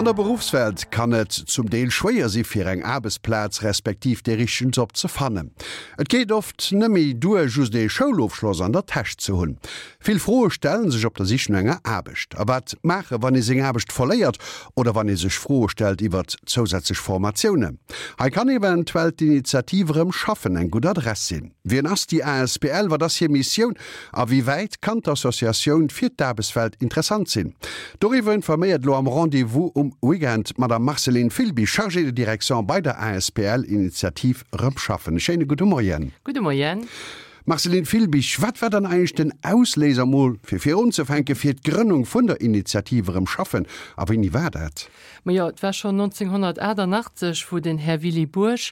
An der Beruffswelt kann et zum Deel schwéier si fir eng Aarbechtsplaz respektiv dee richtegen Job ze fannen. Et geet oft neméi duer just ee Schoulofschloss an der Täsch ze hunn. Vill Froe stellen sech op der Sich no enger Aarbecht. A wat maache wann ee seng Aarbecht verléiert oder wann ee sech Froe stellt iwwert zousätzlech Formatiounen? Hei kann eventuell d'Initiativ Erëm schaffen eng gutt Adress sinn. Wien ass déi asbl, wat ass hir Missioun a wéi wäit kann d'Associatioun fir d'Aarbechtswelt interessant sinn? Doriwwer informéiert elo am Rendez-vous um Weekend d'Madame Marceline Filby, Chargée de direction bei der asbl Initiativ Erëm schaffen. E schéine gudde Moien. Gudde Moien. Marceline Filbig, wat war dann eigentlech den Ausléiser, mol fir virunzefänken, fir d'Grënnung vun der Initiativ Erëm schaffen a wéini war dat? Majo, et war schonn 1988, wou den Här Willy Bourg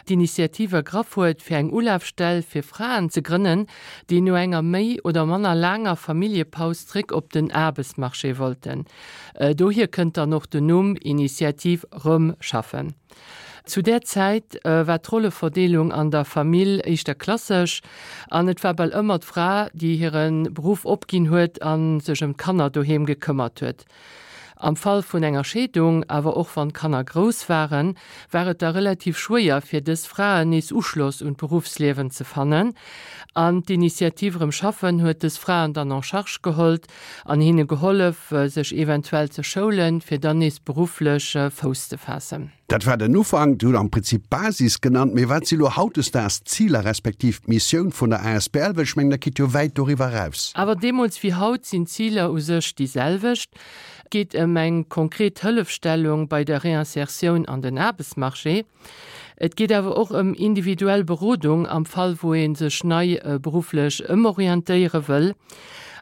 d'Initiativ ergraff huet, fir eng Ulafstell fir Fraen ze grënnen, déi no enger méi oder manner laanger Familljepaus zréck op den Aarbechtsmarché wollten. Dohier kënnt dann och den Numm Initiativ Rëm schaffen. Zu där Zäit war d'Rolleverdeelung an der Famill éischter klassesch an et war bal ëmmer d'Fra, déi hire Beruff opginn huet a sech ëm d'Kanner doheem gekëmmert huet. Am Fall vun enger Scheedung, awer och wann d'Kanner grouss waren, war et da relativ schwéier fir dës Fraen nees Uschloss un d'Beruffsliewen ze fannen. An d'Initiativ Erëm schaffen huet dës Fraen dann en charge gehollt an hinne gehollef, sech eventuell ze schoulen, fir dann nees berufflech Fouss ze faassen. Dat war den Ufank. Dir hutt am Prinzip d'Basis genannt. Mee wat si lo hautdesdaags d'Ziler respektiv d'Missioun vun der asbl? Well ech mengen, dat geet jo wäit doriwwer eraus. Awer deemools wéi haut sinn d'Ziler u sech déi selwecht. Et geet ëm eng konkret Hëllefstellung bei der Réinsertioun an den Aarbechtsmarché. Et geet awer och ëm individuell Berodung am Fall wou ee sech nei berufflech ëmorientéiere wëll.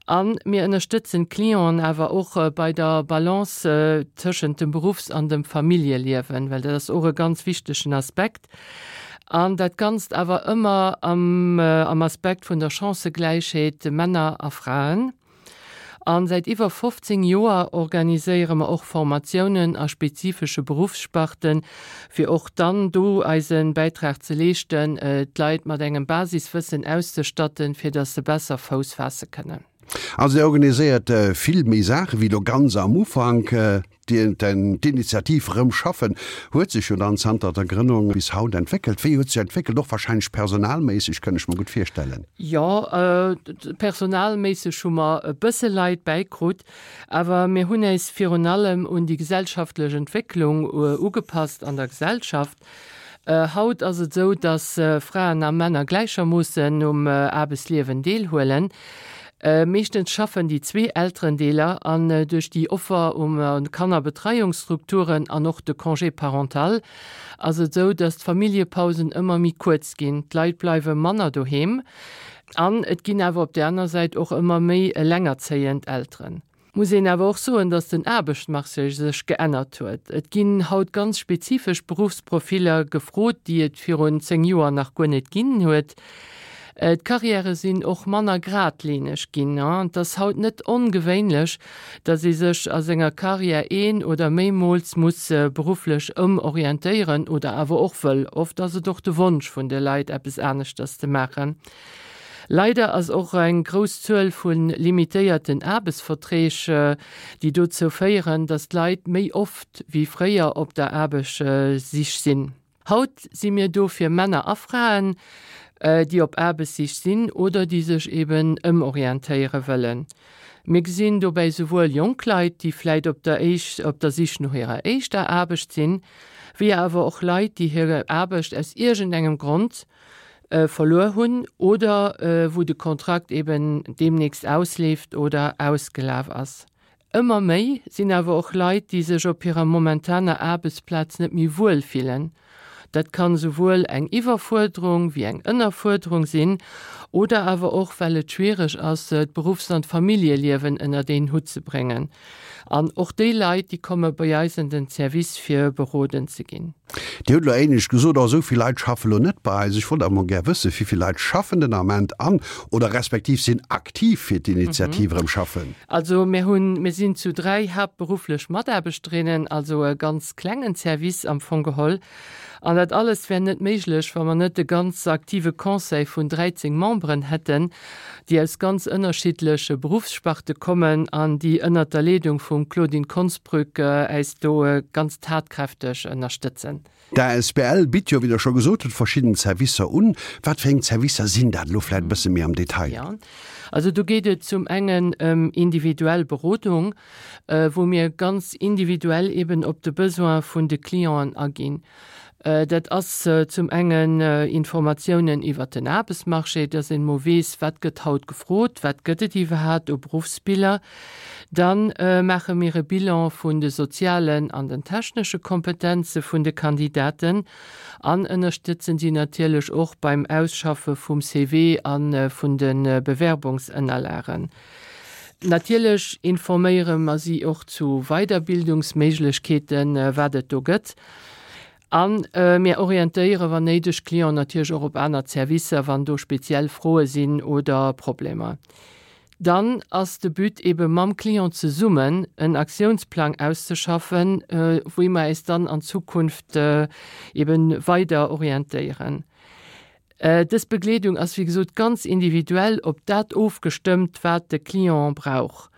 A mir ënnerstëtzen d'Clienten awer och bei der Balance tëschent dem Beruffs an dem Familljeliewen, well dat ass och e ganz wichtegen Aspekt. An dat Ganzt awer ëmmer am Aspekt vun der Chancëgläichheet Männer a Fraen. A säit iwwer 15 Joer organiséiere mer och Formatiounen a spezifesche Beruffssparten, fir och dann do eise Bäitrag ze leeschten, d'Leit mat engem Basiswëssen auszestatten, fir datt se besser Fouss faasse kënnen. Also Dir organiséiert vill méi Saache wéi elo ganz am Ufank. D'Initiativ Rëm schaffen huet sech jo dann zanter der Grënnung bis haut entwéckelt. Wéi huet sech entwéckelt? Och warscheinlech personalméisseg, kënn ech mer gutt virstellen. Jo, personalméisseg hu mer e bësse Leit bäikrut, awer mir hunn äis virun allem un déi gesellschaftlech Entwécklung ugepasst an der Gesellschaft. Haut ass et esou, dass Fraen a Männer gläichermoossen um Aarbechtsliewen deelhuelen. Meeschtens schaffen déi zwee Elterendeeler an duerch déi Offer um Kannerbetreiungsstrukturen an och de Congé parental ass et esou, dass d'Familljepausen ëmmer méi kuerz ginn. D'Leit bleiwe manner doheem an et ginn awer op där aner Säit och ëmmer méi elengerzéiend Elteren. Muss een awer och soen, dass den Aarbechtsmarché sech geännert huet. Et ginn haut ganz spezifesch Beruffsprofiller gefrot, déi et virun 10 Joer nach guer net ginn huet. D'Karriäre sinn och manner gradlineg ginn. Et ass haut net ongewéinlech, dass ee sech a senger Karriär een oder méimools muss berufflech ëmorientéieren oder awer och wëll. Oft ass et och de Wonsch vun de Leit, eppes aneschters ze maachen. Leider ass och eng grouss Zuel vu limitéierten Aarbechtsverträg, déi dozou féieren, datt d'Leit méi oft wéi fréier op der Aarbechtssich sinn. Haut si mir do fir Männer a Fraen, déi op Aarbechtssich sinn oder déi sech eben ëmorientéiere wëllen. Mir gesinn dobäi souwuel jonk Leit, déi vläit op der op der Sich no hirer éischter Aarbecht sinn, wéi awer och Leit, déi hir Aarbecht aus iergendengem Grond verluer hunn oder wou de Kontrakt eben deemnächst ausleeft oder ausgelaf ass. Ëmmer méi sinn awer och Leit, déi sech op hirer momentaner Aarbechtsplaz net méi wuel fillen. Dat kann esouwuel eng Iwwerfuerderung wéi eng Ënnerfuerderung sinn oder awer och well et schwiereg ass, d'Beruffs an d'Familljeliewen ënnert een Hutt ze bréngen. An och déi Leit, déi komme bei eis an den Service fir beroden ze ginn. Dir hutt elo éinescht gesot, oh esou vill Leit schaffe lo net bei eis. Ech wollt awer mol gär wëssen, wéi vill Leit schaffen den Ament an oder respektiv sinn aktiv fir d'Initiativ Erëm schaffen? Also mir hunn, mir sinn zu 3 haaptberufflech Mataarbechterinnen, also e ganz klengen Service am Fong geholl. An dat alles wär net méiglech, wa mer net e ganz aktive Conseil vun 13 Memberen hätten, déi aus ganz ënnerschiddleche Beruffssparte kommen an déi ënnert der Leedung vum Claudine Konsbrück äis do ganz tatkräfteg ënnerstëtzen. D'asbl bitt jo, wéi Der scho gesot hutt, verschidden Zerwisser un. Wat fir eng Zerwisser sinn dat elo vläicht e bësse méi am Detail? Jo, also do geet et zum engen ëm individuell Berodung, wou mir ganz individuell eben op de Besoin vun de Clienten aginn. Dat ass zum engen Informatiounen iwwert den Aarbechtsmarché, dass een emol weess, wat gëtt haut gefrot, wat gëtt et iwwerhaapt u Beruffsbiller. Da maache mir e Bilan vun de sozialen an den technesche Kompetenze vun de Kandidaten an ënnerstëtzen si natierlech och beim Ausschaffe vum CV a vun de Bewerbungsënnerlagen. Natierlech informéiere mer si och zu Weiderbildungsméiglechkeeten, wat et do gëtt. A mir orientéiere wann néideg d'Clienten natierlech och op aner Zerwisser, wann do speziell Froe sinn oder Problemer. Dann ass de But ebe mam Client zesummen en Aktiounsplang auszeschaffen, wéi mer äis dann an Zukunft ebe weider orientéieren. Dës Begleedung ass wéi gesot ganz individuell op dat ofgestëmmt, wat de Client brauch.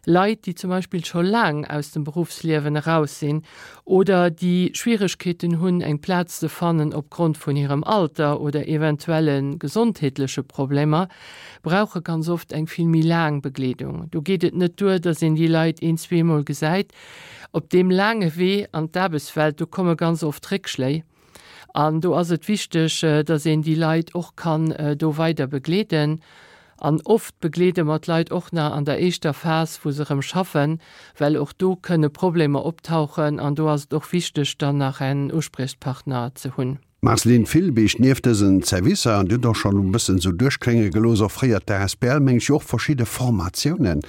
Leit, déi zum Beispill scho laang aus dem Beruffsliewen eraus sinn oder déi Schwieregkeeten hunn, eng Plaz ze fannen opgrond vun hirem Alter oder eventuelle gesondheetleche Problemer, brauche ganz oft eng vill méi laang Begleedung. Do geet et net duer, dass een déi Leit een, zweemol gesäit. Op deem laange Wee an d'Aarbechtswelt, do komme ganz oft Réckschléi. An do ass et wichteg, dass een déi Leit och kann do weider begleeden. An oft begleede mer d'Leit och nach an der éischter Phas, wou se erëm schaffen, well och do kënne Problemer optauchen an do ass et och wichteg, dann nach en Uspriechpartner ze hunn. Marceline Filbig, Nieft dësen Zerwisser, an Dir hutt och schonn e bëssen esou duerchklénge gelooss, offréiert d'ASBL, meng ech, jo och verschidde Formatiounen.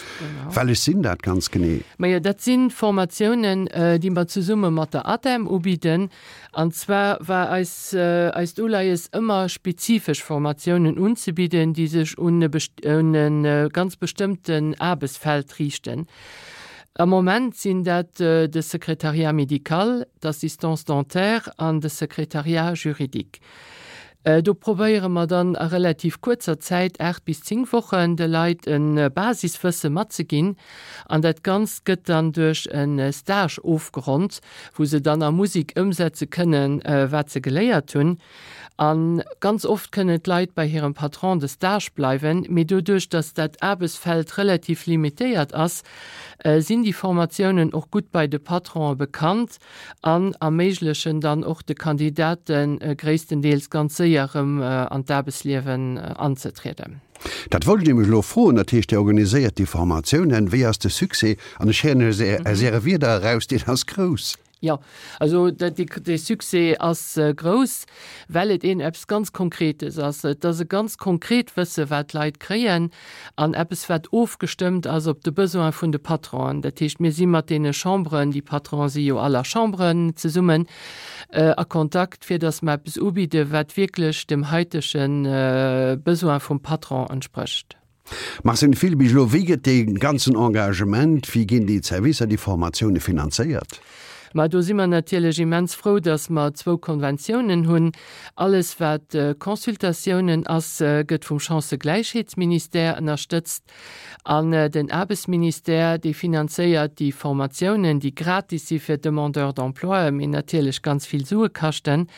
Wellech sinn dat ganz genee? Majo, dat si Formatiounen, déi mer zesumme mat der ADEM ubidden. An zwar war eis eist Uleies ëmmer spezifesch Formatiounen unzebidden, déi sech un e un e ganz bestëmmten Aarbechtsfeld riichten. Am Moment sinn dat de Secrétariat médical, d'Assistance dentaire an de Secrétariat juridique. Do probéiere mer dann a relativ kuerzer Zäit, 8 bis 10 Wochen, de Leit e Basiswësse matzeginn. An dat Ganzt gëtt dann duerch e Stage ofgeronnt, wou se dann a Musek ëmsetze kënnen, wat se geléiert hunn. A ganz oft kënnen d'Leit bei hirem Patron de stage bleiwen, mee doduerch, datt dat Aarbechtsfeld relativ limitéiert ass, sinn déi Formatiounen och gutt bei de Patronen bekannt. an erméiglechen dann och de Kandidate gréisstendeels ganz séier erëm an d'Aarbechtsliewen anzetrieden. Dat wollt ech nämlech elo froen. Dat heescht, Dir organiséiert déi Formatiounen. Wéi ass de Succès? An ech héieren aus Äre Wierder eraus, deen ass grouss. Jo, also de Succès ass grouss, well et een eppes ganz Konkretes ass. Et ass e ganz konkret Wësse wat d'Leit kréien. An eppes, wat ofgestëmmt ass op de Besoin vun de Patronen. Dat heescht, mir si mat deene Chamberen, déi Patronen si jo all a Chamberen zesummen, a Kontakt, fir datt mer eppes ubidden, wat wierklech dem haitege Besoin vum Patron entsprécht. Marcel Filbig, Elo, wéi gëtt dee ganzen Engagement, wéi ginn déi Zerwisser, déi Formatioune finanzéiert? Mä do si mer natierlech immens frou, dass mer zwou Konventiounen hunn. Alles, wat Consultatiounen ass, gëtt vum Chancëgläichheetsministère ënnerstëtzt. An den Aarbechtsministère, dee finanzéiert déi Formatiounen, déi gratis si fir d'Demandeurs d'emploi, mee natierlech ganz vill Sue kaschten.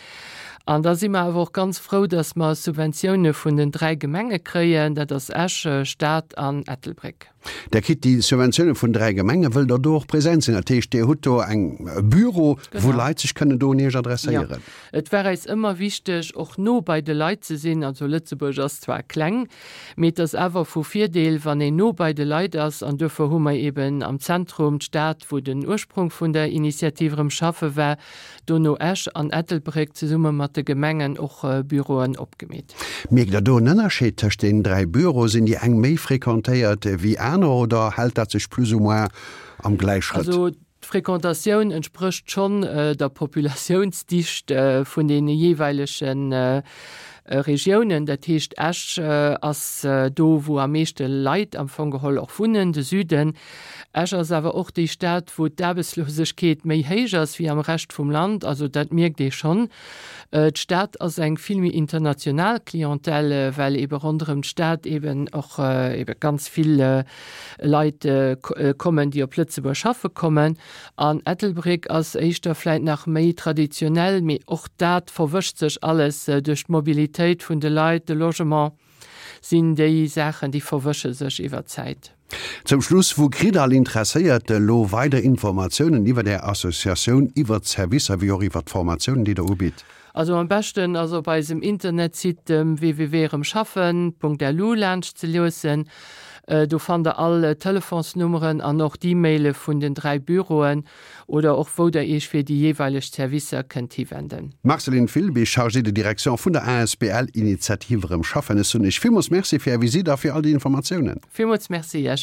An da si mer awer och ganz frou, dass mer Subventioune vun den 3 Gemenge kréien, dat ass Esch, Stad an Ettelbréck. Der kritt déi Subventioune vun 3 Gemengen. Wëllt Der do och present sinn? Dat heescht, Dir hutt do eng e Büro, wou Leit sech kënnen do un Iech adresséieren? Jo. Et war eis ëmmer wichteg, och no bei de Leit ze sinn. Also Lëtzebuerg ass zwar kleng, mee et ass awer vu Virdeel, wann een no bei de Leit ass. An duerfir hu mer eeben am Zentrum d'Stad, wou den Ursprung vun der Initiativ Erëm schaffe war, dono Esch an Ettelbréck zesumme mat de Gemengen och Büroen opgemeet. Mierkt Der do en Ënnerscheed tëscht deenen 3 Büroe? Sinn déi eng méi fréquentéiert wéi aner oder hält dat sech plus ou moins am Gläichschrëtt? Also d'Fréquentatioun entsprécht schonn der Populatiounsdicht vun deene jeeweilege. Regiounen. Dat heescht, Esch ass do, wou am meeschte Leit am Fong geholl och wunnen, de Süden. Esch ass awer och déi Stad, wou d'Aarbechtslosegkeet méi héich ass wéi am Rescht vum Land. Also dat mierkt ee schonn. D'Stad ass eng vill méi international Clientèle, well eebe ronderëm d'Stad eeben och eebe ganz vill Leit kommen, déi op Lëtzebuerg schaffe kommen. An Ettelbréck ass éischter vläit nach méi traditionell, mee och dat verwëscht sech alles duerch d'Mobilitéit vun de Leit, de Logement sinn déi Saachen, déi verwësche sech iwwer d'Zäit. Zum Schluss, Wou kritt all Interesséierte elo weider Informatiounen iwwer Är Associatioun, iwwer d'Servicer wéi och iwwer d'Formatiounen, déi Der ubitt? Also am beschten ass op eisem Internetsite www.eremschaffen.lu laanscht ze luessen. Do fannt der all Telefonsnummeren an och d'E-Maile vun den 3 Büroen oder och wou der iech fir déi jeeweileg Servicer kënnt hiwenden. Marceline Filby, Chargée de direction vun der asbl Initiative Erëm Schaffen. Ech soen iech villmools Merci fir är Visite a fir all déi Informatiounen. Villmools Merci iech.